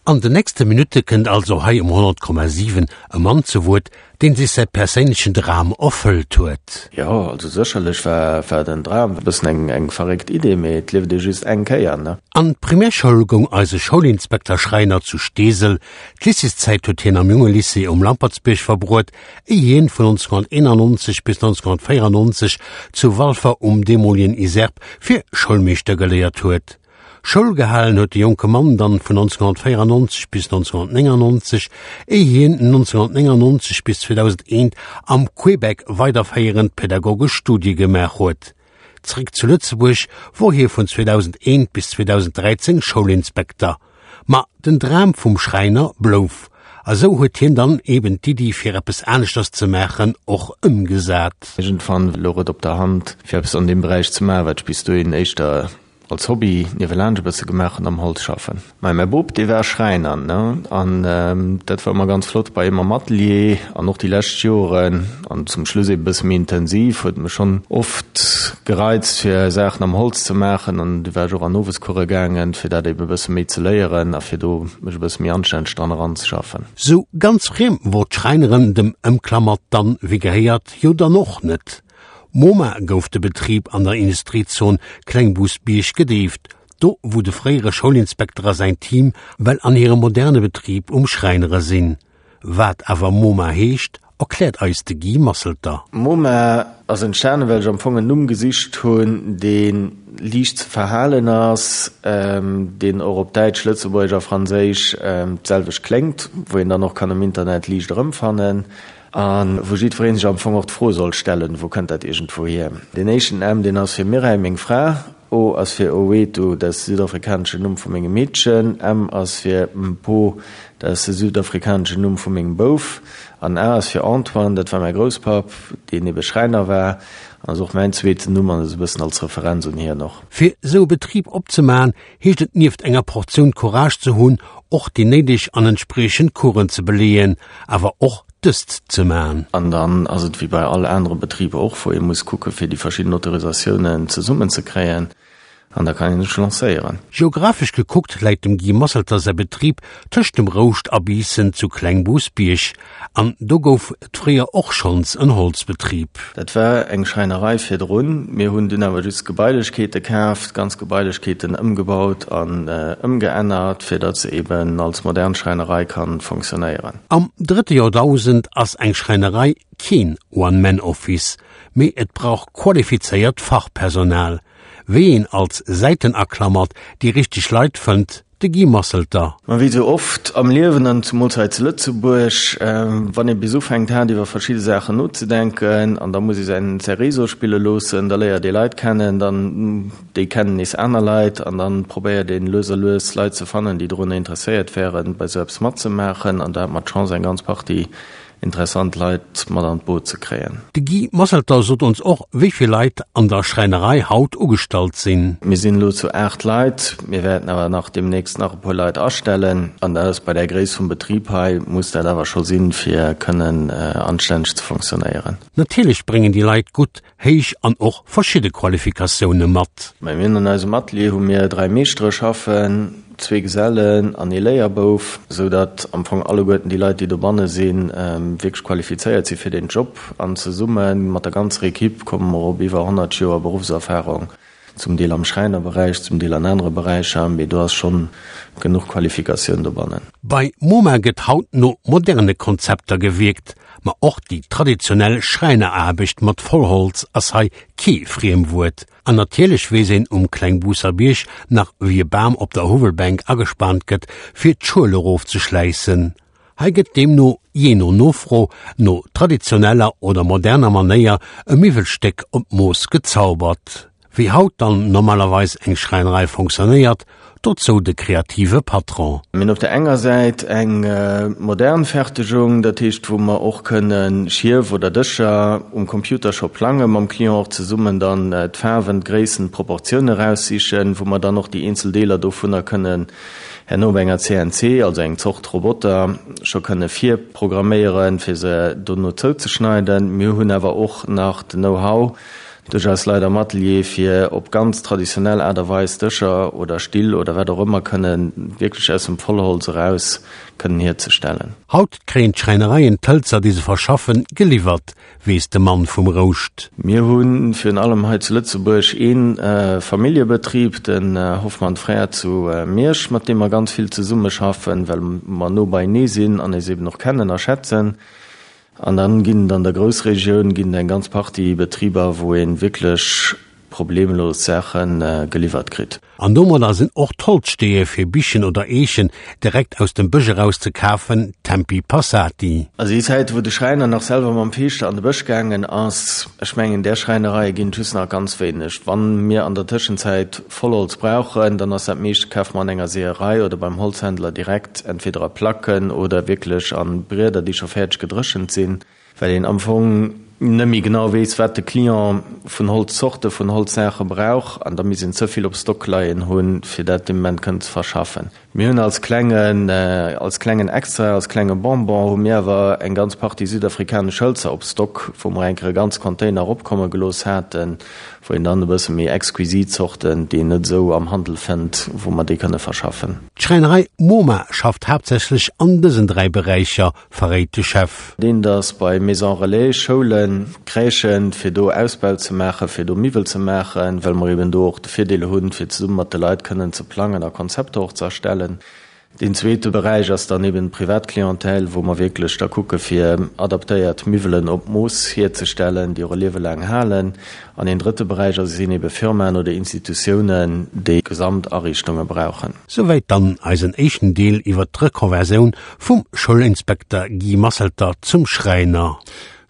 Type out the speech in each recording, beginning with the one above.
An de nächste Minutte kënnt also hei um 100,7 e Mann zu Wuert, deen sech säi perséinlechen Dram erfëllt huet. Jo, also sécherlech war war den Dram e bëssen eng eng verréckt Idee, mee et lieft ee just eng Kéier, ne? An d'Primärschoul goung eise Schoulinspekter Schreiner zu Steesel. D'Lycéeszäit huet hien am Jungelycée um Lampertsbierg verbruet, éi hien vun 1991 bis 1994 zu Walfer um deemolegen ISERP fir Schoulmeeschter geléiert huet. Schoul gehalen huet de jonke Mann dann vun 1994 bis 1999, éi hien 1999 bis 2001 am Québec weiderféierend pädagogesch Studie gemaach huet. Zréck zu Lëtzebuerg wor hie vun 2001 bis 2013 Schoulinspekter. Ma den Dram vum Schräiner blouf, a sou huet hien dann eben d'Iddi fir eppes aneschters ze maachen och ëmgesat. Iergendwann louch et op der Hand fir eppes an deem Beräich ze maachen, wat ech bis dohin éischter als Hobby niewelaanscht e bësse gemaach hunn, am Holz schaffen. Mä mäi Bop, dee war Schräiner, ne, an dat war ëmmer ganz flott bei him am Atelier an och déi lescht Joren an zum Schluss ebe bësse méi intensiv, huet mech schonn oft gereizt fir Saachen am Holz ze maachen an du war ech och an Owescourse gaangen, fir dat ebe bësse méi ze léieren a fir do mech e bësse méi anstänneg dran eranzeschaffen. Sou ganz friem wor d'Schräineren dem Ëmklammert dann, wéi gehéiert, jo dann och net. Moma gouf de Betrib an der Industriezon Klengbousbierg gedeeft, do wou de fréiere Schoulinspekter a säin Team well an hirem moderne Betrib um Schräinere sinn. Wat awer Moma heescht, erkläert eis de Guy Masselter. Moma ass entstanen, well ech am Fong en Numm gesicht hunn, dee liicht ze verhalen ass, deen och op Däitsch, Lëtzebuergesch a Franséisch d'selwecht kléngt, wou een dann och kann am Internet liicht erëmfannen. A wou jiddweree sech am Fong och d'Fro soll stellen, Wou kënnt dat iergendwou hier? Deen éischten M, deen ass fir Mireille, meng Fra, O ass fir Owethu, dat ass de südafrikaneschen Numm vu mengem Meedchen, M ass fir Mpho, dat ass de südafrikaneschen Numm vu mengem Bouf, an A ass fir Antoine, dat war mäi Grousspapp, deen ebe Schräiner war, an ass och mäin zweeten Numm an ass e bëssen als Referenz un hien och. Fir esou e Betrib opzemaachen, heescht et nieft enger Portioun Courage ze hunn, och déi néideg an entspriechend Coursen ze beleeën, awer och dëst ze man. An dann ass et wéi bei all anere Betrib och, wou ee muss kucke fir déi verschidden Autorisatiounen zesummen ze kréien an da kann een sech lancéieren. Geographesch gekuckt läit dem Guy Masselter säi Betrib tëscht dem Rouscht a Biissen zu Klengbousbierg. An do gouf et fréier och schonns en Holzbetrib. Dat war eng Schräinerei virdrun. Mir hunn dunn awer just Gebailechkeete kaaft, ganz Gebailechkeeten ëmgebaut an ëmgeännert, fir datt se eben als modern Schräinerei kann fonctionnéieren. Am drëtte Joerdausend ass eng Schräinerei keen One-Man-Office, mee et brauch qualifizéiert Fachpersonal. Wéi een als Säitenaklammert déi richteg Leit fënnt, De Guy Masselter. Ma wéi sou oft am Liewen, an zumools hei zu Lëtzebuerg, wann ee bis ufänkt haart iwwer verschidde Saachen nozedenken, an da muss ee säin säi Réseau spille loossen, da léiert ee Leit kennen, dann déi kennen nees aner Leit, an dann probéiert een lues a lues Leit ze fannen, déi dorunner interesséiert wären, bei sou eppes matzemaachen. An do hat mer d'Chance, eng ganz Partie interessant Leit mat an d'Boot ze kréien. De Guy Masselter sot ons och, wéi vill Leit an der Schräinerei haut ugestallt sinn. Mir sinn elo zu 8 Leit, mir wäerten awer nach deemnächst nach e puer Leit astellen. An dat ass bei där Gréisst vum Betrib hei, muss dat awer scho sinn, fir kënnen anstänneg ze fonctionnéieren. Natierlech bréngen déi Leit gutt héich an och verschidde Qualifikatioune mat. Bei mir an eisem Atelier hu mir 3 Meeschtere schaffen, zwee Gesellen an ee Léierbouf, sou datt am Fong alleguerten déi Leit, déi dobanne sinn, wierklech qualifizéiert si fir deen Job. An zesumme mat der ganzer Equipe komme mer op iwwer 100 Joer Beruffserfarung, zum Deel am Schräinerberäich, zum Deel an anere Beräicher, mee do ass schonn genuch Qualifikatioun dobannen. Bei MoMa gëtt haut no moderne Konzepter gewierkt. Ma och déi traditionell Schräineraarbecht mat Vollholz ass hei kee Friemwuert. An natierlech weess een um Klengbuusser Bierg nach wéi e Bam op der Huwwelbänk agespaant gëtt fir d'Schuel erofzeschläissen. Hei gëtt deemno, jee no Nofro, no traditioneller oder moderner Manéier e Miwwelstéck op d'Mooss gezaubert. Wéi haut dann normalerweis eng Schräinerei fonctionnéiert, dozou de kreative Patron. Mir hunn op der enger Säit eng modern Fertegung, dat heescht wou mer och kënne Schief oder Dëscher um Computer scho plangen, mam Client och zesummen dann d'Faarwen, d'Gréissten, d'Proportioune raussichen, wou mer dann och déi eenzel Deeler dovunner kënnen herno op enger CNC, also eng Zort Roboter, scho kënne virprogramméieren, fir se dono zouzeschneiden. Mir hunn awer och nach den Know-how. Duerch eis Leit am Atelier, fir op ganz traditionell Aart a Weis Dëscher oder Still oder wat och ëmmer kënnen wierklech aus dem Vollholz eraus kënnen hierzestellen. Haut kréien d'Schräinereien d'Hëlzer, déi se verschaffen, geliwwert, weess de Mann vum Rouscht. Mir hu virun allem hei zu Lëtzebuerg ee Familljebetrib, den Hoffmann Frères zu Miersch, mat deem mer ganz vill zesummeschaffen, well mer no beienee sinn an eis eben och kennen a schätzen. An dann ginn et an der Groussregioun ginn et eng ganz Partie Betriber, wou ee wierklech problemlos Saache geliwwert kritt. An domadder sinn och d'Holzsteeë fir Bichen oder Eechen direkt aus dem Bësch eraus ze kafen, Tempi passati. Also déi Zäit, wou de Schräiner nach selwer mam Feeschter an de Bësch gaangen ass, ech mengen, där Schräinereie ginn et just nach ganz wéineg. Wann mir an der Tëschenzäit Vollholz brauchen, dann ass dat meescht, kafe mer an enger Seeërei oder beim Holzhändler direkt, entweder a Placken oder wierklech a Brieder, déi scho fäerdeg gedréchent sinn. Well een am Fong net méi genau weess, wat de Client vun Holzzorte, vun Holzsaache brauch, an da misst een ze vill op Stock leien hunn, fir dat dee Moment kënnen ze verschaffen. Mir hunn als klengen, als klengen Extra, als klenge Bonbon hu mir awer eng ganz Partie südafrikanesch Hëlzer op Stock, wou mer eng Kéier e ganz Container eropkomme gelooss haten, wou een dann e bësse méi exquisit Zorten, déi een net esou am Handel fënnt, wou mer déi kënne verschaffen. D'Schräinerei MoMa schafft haaptsächlech an dësen 3 Beräicher, verréit de Chef. Deen ass bei Maisons Relais, Schoulen, Crèchen, fir do Ausbau ze maachen, fir do Miwwel ze maachen, well mer eben do och de Virdeel hunn, fir zesumme mat de Leit kënnen ze plangen a Konzepter och ze erstellen. Deen zweete Beräich ass dann eben d'Privatclientèle, wou mer wierklech da kucke fir adaptéiert Miwwelen op Mooss hierzestellen, déi och e Liewe laang halen. An een drëtte Beräich ass sinn ebe Firmaen oder Institutiounen, déi Gesamtariichtunge brauchen. Souwäit dann eisen éischten Deel iwwert d'Rekonversioun vum Schoulinspekter Guy Masselter zum Schräiner.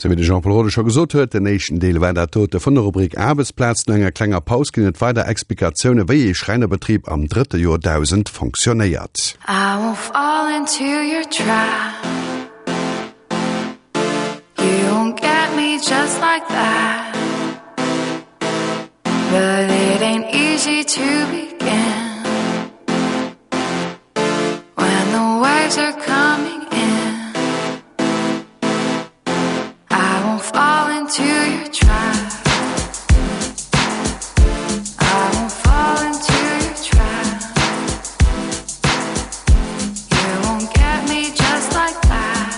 Sou wéi de Jean-Paul Rode scho gesot huet, den éischten Deel war dat dote vun der Rubrik Aarbechtsplaz. No enger klenger Paus ginn et weider Explikatioune wéi ee Schräinerbetrib am drëtte Joerdausend fonctionnéiert. I won't fall into your trap You won't get me just like that But it ain't easy to begin When the waves are coming in I won't fall into your trap I won't fall into your trap You won't get me just like that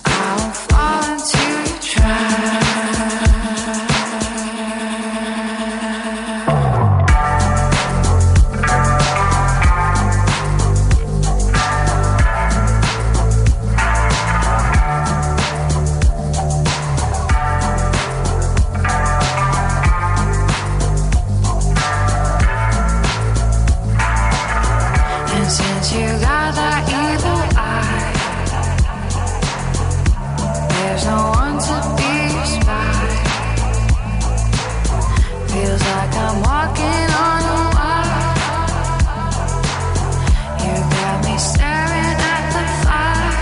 I won't fall into your trap And since you got that evil eye There's no one to be your spy Feels like I'm walking on a wire You got me staring at the fire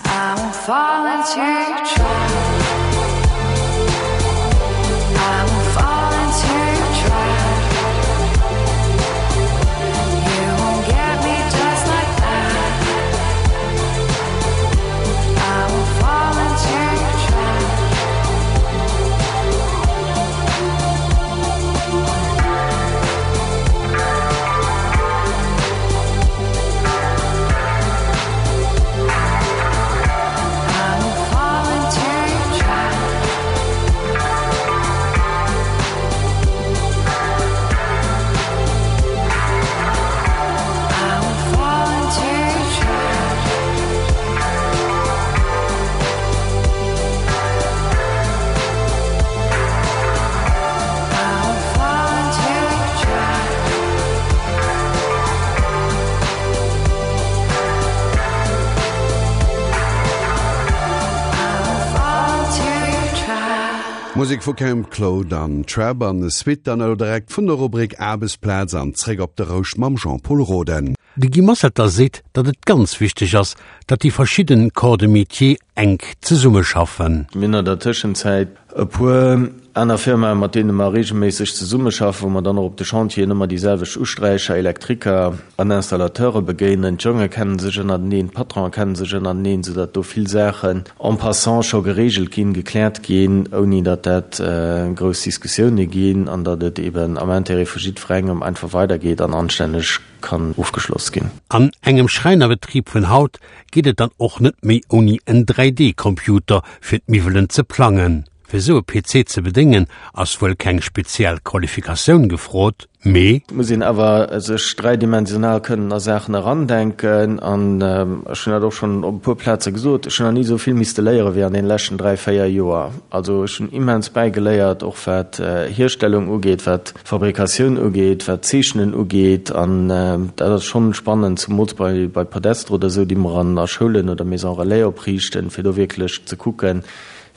I won't fall into your trap I won't fall into your trap You won't get me just like that I won't fall into your trap I won't fall into your trap I won't fall into your trap I won't fall into your trap I won't fall into your trap Musek vu Camp Claude an Trap an Suite dann elo direkt vun der Rubrik Aarbechtsplaz an zréck op de Rouscht mam Jean-Paul Roden. De Guy Mossetter seet, datt et ganz wichteg ass, datt déi verschidden Corps de métier enk zesummeschaffen. Mir hunn an der Tëschenzäit e puer aner Firmae mat deene mer reegelméisseg zesummeschaffen, wou mer dann och op de Chantieren ëmmer déi selwecht Usträicher, Elektriker an Installateure begéinen. D'Jonge kennen sech ënnerteneen, d'Patronen kennen sech ënnerteneen, soudatt do vill Saachen en passant scho gereegelt ginn, gekläert ginn, ouni datt dat grouss Diskussioune ginn an datt et eben am Intérêt vu jiddwerengem einfach weidergeet an anstänneg kann ofgeschloss ginn. An engem Schräinerbetrib vun haut geet et dann och net méi ouni en 3D-Computer fir d'Miwwelen ze plangen. Fir sou e PC ze bedéngen ass wuel keng speziell Qualifikatioun gefrot, mee. Et muss een awer sech dräidimensional kënnen a Saachen erandenken an ech hunn dat och schonn op e puer Plaze gesot, ech hunn nach ni esou vill misste léiere wéi an deene leschten 3, 4 Joer. Also ech hunn immens bäigeléiert, och wat Hierstellung ugeet, wat Fabrikatioun ugeet, wat d'Zeechnen ugeet, an dat ass schonn spannend, zumools bei bei Podester oder esou, déi mer an a Schoulen oder Maisons Relais opriichten, fir do wierklech ze kucken,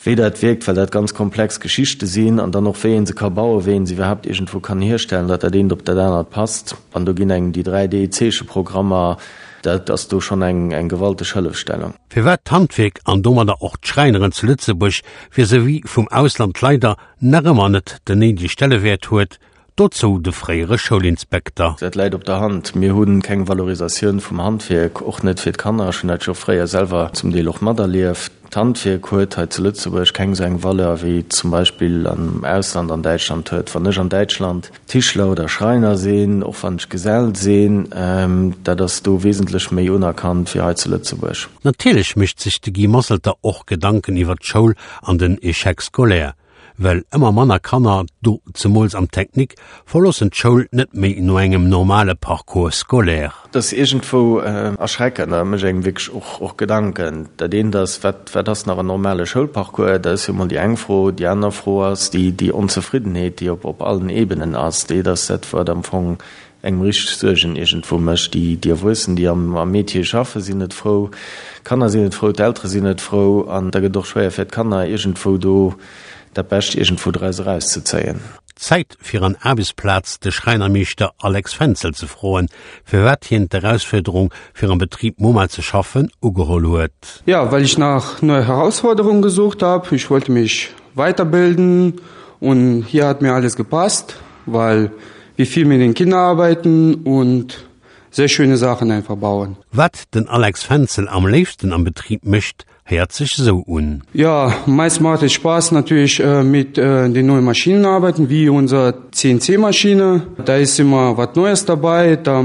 wéi dat wierkt, well dat ganz komplex Geschichte sinn, an dann och wéi ee se ka bauen, wéi ee se iwwerhaapt iergendwou kann hierstellen, datt dat eent op dat anert passt. An do ginn engem déi 3D-Zeecheprogrammer, dat ass do schonn eng eng gewalteg Hëllefstellung. Firwat d'Handwierk an domadder och d'Schräineren zu Lëtzebuerg vis-à-vis vum Ausland leider nach ëmmer net den néidege Stellewäert huet, dozou de fréiere Schoulinspekter. Dat läit op der Hand. Mir hu keng Valorisatioun vum Handwierk, och net fir d'Kanner. Ech hunn dat jo fréier selwer zum Deel och materlieft. D'Handwierk huet hei zu Lëtzebuerg keng esou eng Valeur, wéi et zum Beispill am Ausland, an Däitschland huet. Wann ech an Däitschland Tischler oder Schreiner sinn, och wann ech Gesell sinn, dat ass do wesentlech méi unerkannt wéi hei zu Lëtzebuerg. Natierlech mécht sech de Guy Mosselter och Gedanken iwwer d'Schoul an den Échec scolaire, well ëmmer manner Kanner, do zemools am Technique, verloossen d'Schoul net méi no engem normale Parcours scolaire. Dat ass iergendwou erschreckend a mécht engem wierklech och och Gedanken. Dat eent ass, wat wat ass nach en normale Schoulparcours? Dat ass jo emol déi eng Fro. Déi aner Fro ass déi déi Onzefriddenheet, déi op op allen Ebenen ass. Déi ass dat, wat am Fong engem richteg Suergen iergendwou mécht. Déi déi Erwuessen, déi am am Métier schaffen, sinn net frou, d'Kanner sinn net frou, d'Eltere sinn net frou an da gëtt et och schwéier fir d'Kanner iergendwou do dat Bescht iergendwou draus erauszezéien. Zäit fir an Aarbechtsplaz de Schräinermeeschter Alex Fenzel ze froen, firwat hien d'Erausfuerderung fir am Betrib Moma ze schaffen ugeholl huet. Ja, well ich nach neue Herausforderungen gesucht hab. Ich wollte mich weiterbilden und hier hat mir alles gepasst, weil wir viel mit den Kindern arbeiten und sehr schöne Sachen einfach bauen. Wat den Alex Fenzel am léifsten am Betrib mécht, héiert sech sou un. Ja, meist macht es Spaß natürlich äh, mit äh, den neuen Maschinen arbeiten, wie unser CNC-Maschine. Da ist immer was Neues dabei, da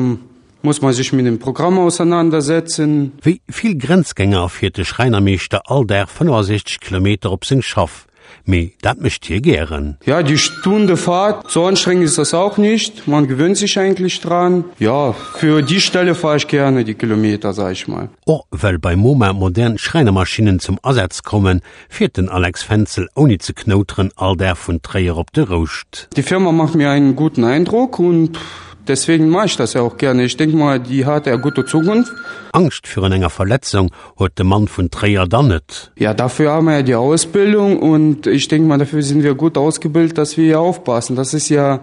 muss man sich mit dem Programm auseinandersetzen. Wéi vill Grenzgänger fiert de Schräinermeeschter all Dag 65 Kilometer op seng Schaff. Mee dat mécht hie gären. Ja, die Stunde Fahrt, so anstrengend ist das auch nicht. Man gewöhnt sich eigentlich dran. Ja, für die Stelle fahre ich gerne die Kilometer, sag ich mal. Och well bei Moma modern Schräinermaschinnen zum Asaz kommen, fiert den Alex Fenzel ouni ze knouteren all Dag vun Tréier op de Rouscht. Die Firma macht mir einen guten Eindruck und deswegen mache ich das ja auch gerne. Ich denke mal, die hat ja gute Zukunft. Angscht virun enger Verletzung huet de Mann vun Tréier dann net. Ja, dafür haben wir ja die Ausbildung und ich denke mal, dafür sind wir gut ausgebildet, dass wir hier aufpassen. Das ist ja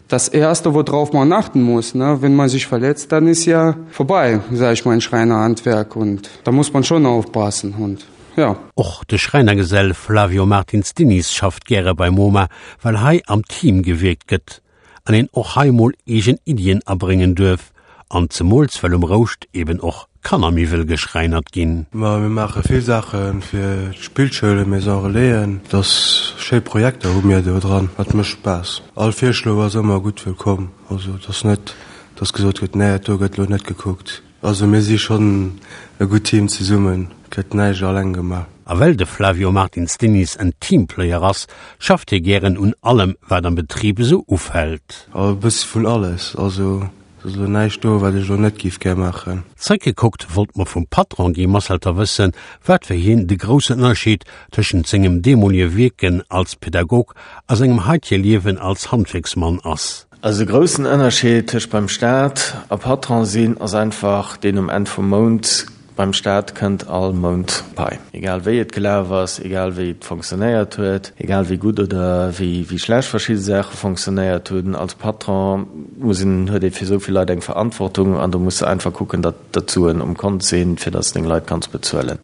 das Erste, worauf man achten muss. Ne? Wenn man sich verletzt, dann ist ja vorbei, sag ich mal, ein Schreinerhandwerk und da muss man schon aufpassen und ja. Och de Schräinergesell Flavio Martins Diniz schafft gäre bei MoMa, well hei am Team gewierkt gëtt an een och hei mol eegen Iddien abréngen duerf, an zemools well um Rouscht eben och Kannermiwwel geschräinert ginn. Ma mir maache vill Saache fir d'Spillschoulen, Maison Relaisen. Et ass schéi Projekter hu mir do dran. Dat mécht Spaass. All Virschlo ass ëmmer gutt wëllkomm. Also et ass net, dass gesot gëtt, nee dat do gëtt elo net gekuckt. Also mir si schonn e gutt Team zesummen, et gëtt näischt alleng gemaach. A well de Flavio Martins Diniz en Teamplayer ass, schafft hie gären un allem, wat am Betrib esou ufält. E bëssi vun alles, also et ass elo näischt do, wat ech elo net géif gär maachen. Zréckgekuckt wollt mer vum Patron Guy Masselter wëssen, wat fir hien de groussen Ënnerscheed tëschent sengem deemolige Wierken als Pädagog a sengem haitege Liewen als Handwierksmann ass. Also de groussen Ënnerscheed tëscht beim Staat a Patron sinn ass einfach deen, um Enn vum Mount. Beim Staat kënnt all Mount Pai. Egal wéi et gelaf ass, egal wéi et fonctionnéiert huet, egal wéi gutt oder wéi schlecht verschidde Saache fonctionnéiert hunn, als Patron muss een, huet ee fir esou vill Leit eng Verantwortung an do muss de einfach kucken, datt d'Suen um Kont sinn, fir datt s deng Leit kanns bezuelen.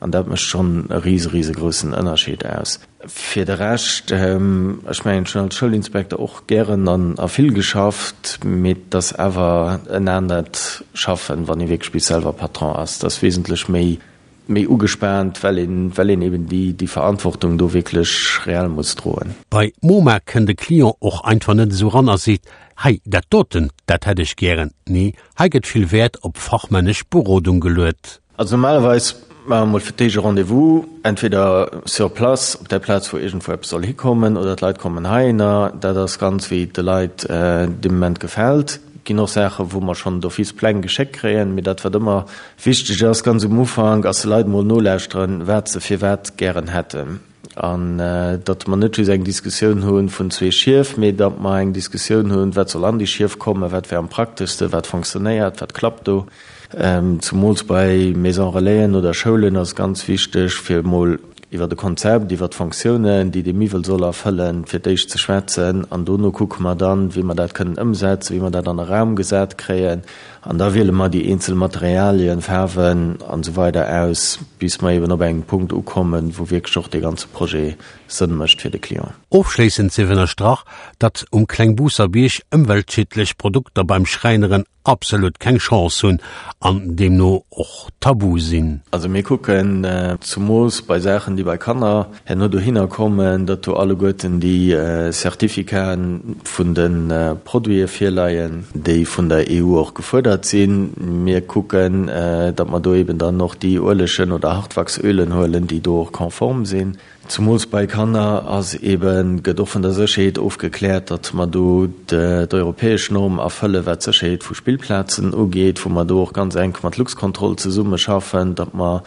An dat mécht schonn e rise, risegroussen Ënnerscheed aus. Fir de Rescht, ech mengen, ech hunn als Schoulinspekter och gären an a vill geschafft, mee et ass awer en anert Schaffen, wann ee wierklech bis selwer Patron ass. Et ass wesentlech méi, méi ugespaant, well een, well een eben déi, déi Verantwortung do wierklech reell muss droen. Bei MoMa kënn de Client och einfach net esou ran a seet, Hei, dat doten, dat hätt ech gären. Nee, hei gëtt vill Wäert op fachmännesch Berodung geluet. Also normalerweis maache mer mol fir d'éischt e Rendez-vous, entweder sur place, op där Plaz wou iergendwou eppes soll hikommen, oder d'Leit kommen heihinner. Dat ass ganz wéi et de Leit dee Moment gefält. Et ginn och Saache wou mer schonn d'office Pläng geschéckt kréien. Mee dat wat ëmmer wichteg ass ganz um Ufank, ass de Leit mol nolauschteren, wat se firwat gären hätten. An datt mer net just eng Diskussioun hu vun zwee Schief, mee datt mer eng Diskussioun hunn, wat soll an déi Schief kommen, wat wär am prakteschsten, wat fonctionnéiert, wat klappt do. Zumools bei Maison Relaisen oder Schoulen ass et ganz wichteg, fir emol iwwer e Konzept, iwwer d'Fonctiounen, déi dee Miwwel soll erfëllen, fir d'éischt ze schwätzen. An dono kucke mer dann, wéi mer dat kënnen ëmsetzen, wéi mer dat an e Raum gesat kréien. An da wiele mer déi eenzel Materialien, Faarwen an esou weider aus, bis mer eben op engem Punkt ukommen, wou wierklech och dee ganze Projet Sënn mécht fir de Client. Ofschléissend sief ënnerstrach, datt um Klengbuusser Bierg ëmweltschiedlech Produkter beim Schräineren absolut keng Chance hunn an deemno och tabu sinn. Also mir kucken zumols bei Saachen, déi bei Kanner herno dohinner kommen, datt do alleguerten déi Certificaten vun de Produite virleien, déi vun der EU och gefuerdert sinn. Mir kucken, datt mer do eben dann och déi Uelegen oder Hartwachsölen huelen, déi do och konform sinn. Zumools bei Kanner ass eben, gëtt och vun der Sécherheet ofgekläert, datt mer do d'europäesch Norm erfëllen, wat d'Sécherheet vu Spillplazen ugeet, wou mer do och ganz enk mat Luxcontrol zesummeschaffen, datt mer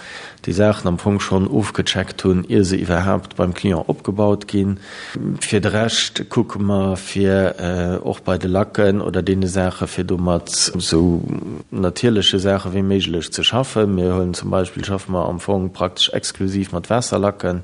déi Saachen am Fong schonn ofgecheckt hunn, ier se iwwerhaapt beim Client opgebaut ginn. Fir de Rescht kucke mer, fir och bei de Lacken oder deene Saache fir do mat esou natierleche Saache wéi méiglech ze schaffen. Mir huelen zum Beispill, schaffe mer am Fong praktesch exklusiv mat Waasserlacken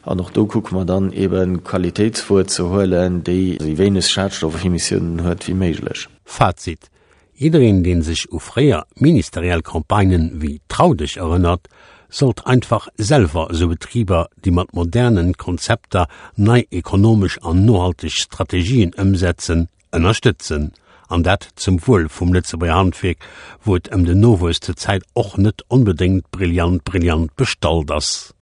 an och do kucke mer dann eebe Qualitéitswuer ze huelen, déi esou wéineg Schadstoffemissiounen huet wéi méiglech. Fazit, Jiddereen deen sech u fréier ministeriell Campagnen wéi Trau dech erënnert, sollt einfach selwer esou Betriber, déi mat modernen Konzepter nei ekonomesch an nohalteg Strategien ëmsetzen, ënnerstëtzen. An dat zum Wuel vum Lëtzebuerger Handwierk, wou et ëm den Nowuess zur Zäit och net onbedéngt brillant brillant bestallt ass.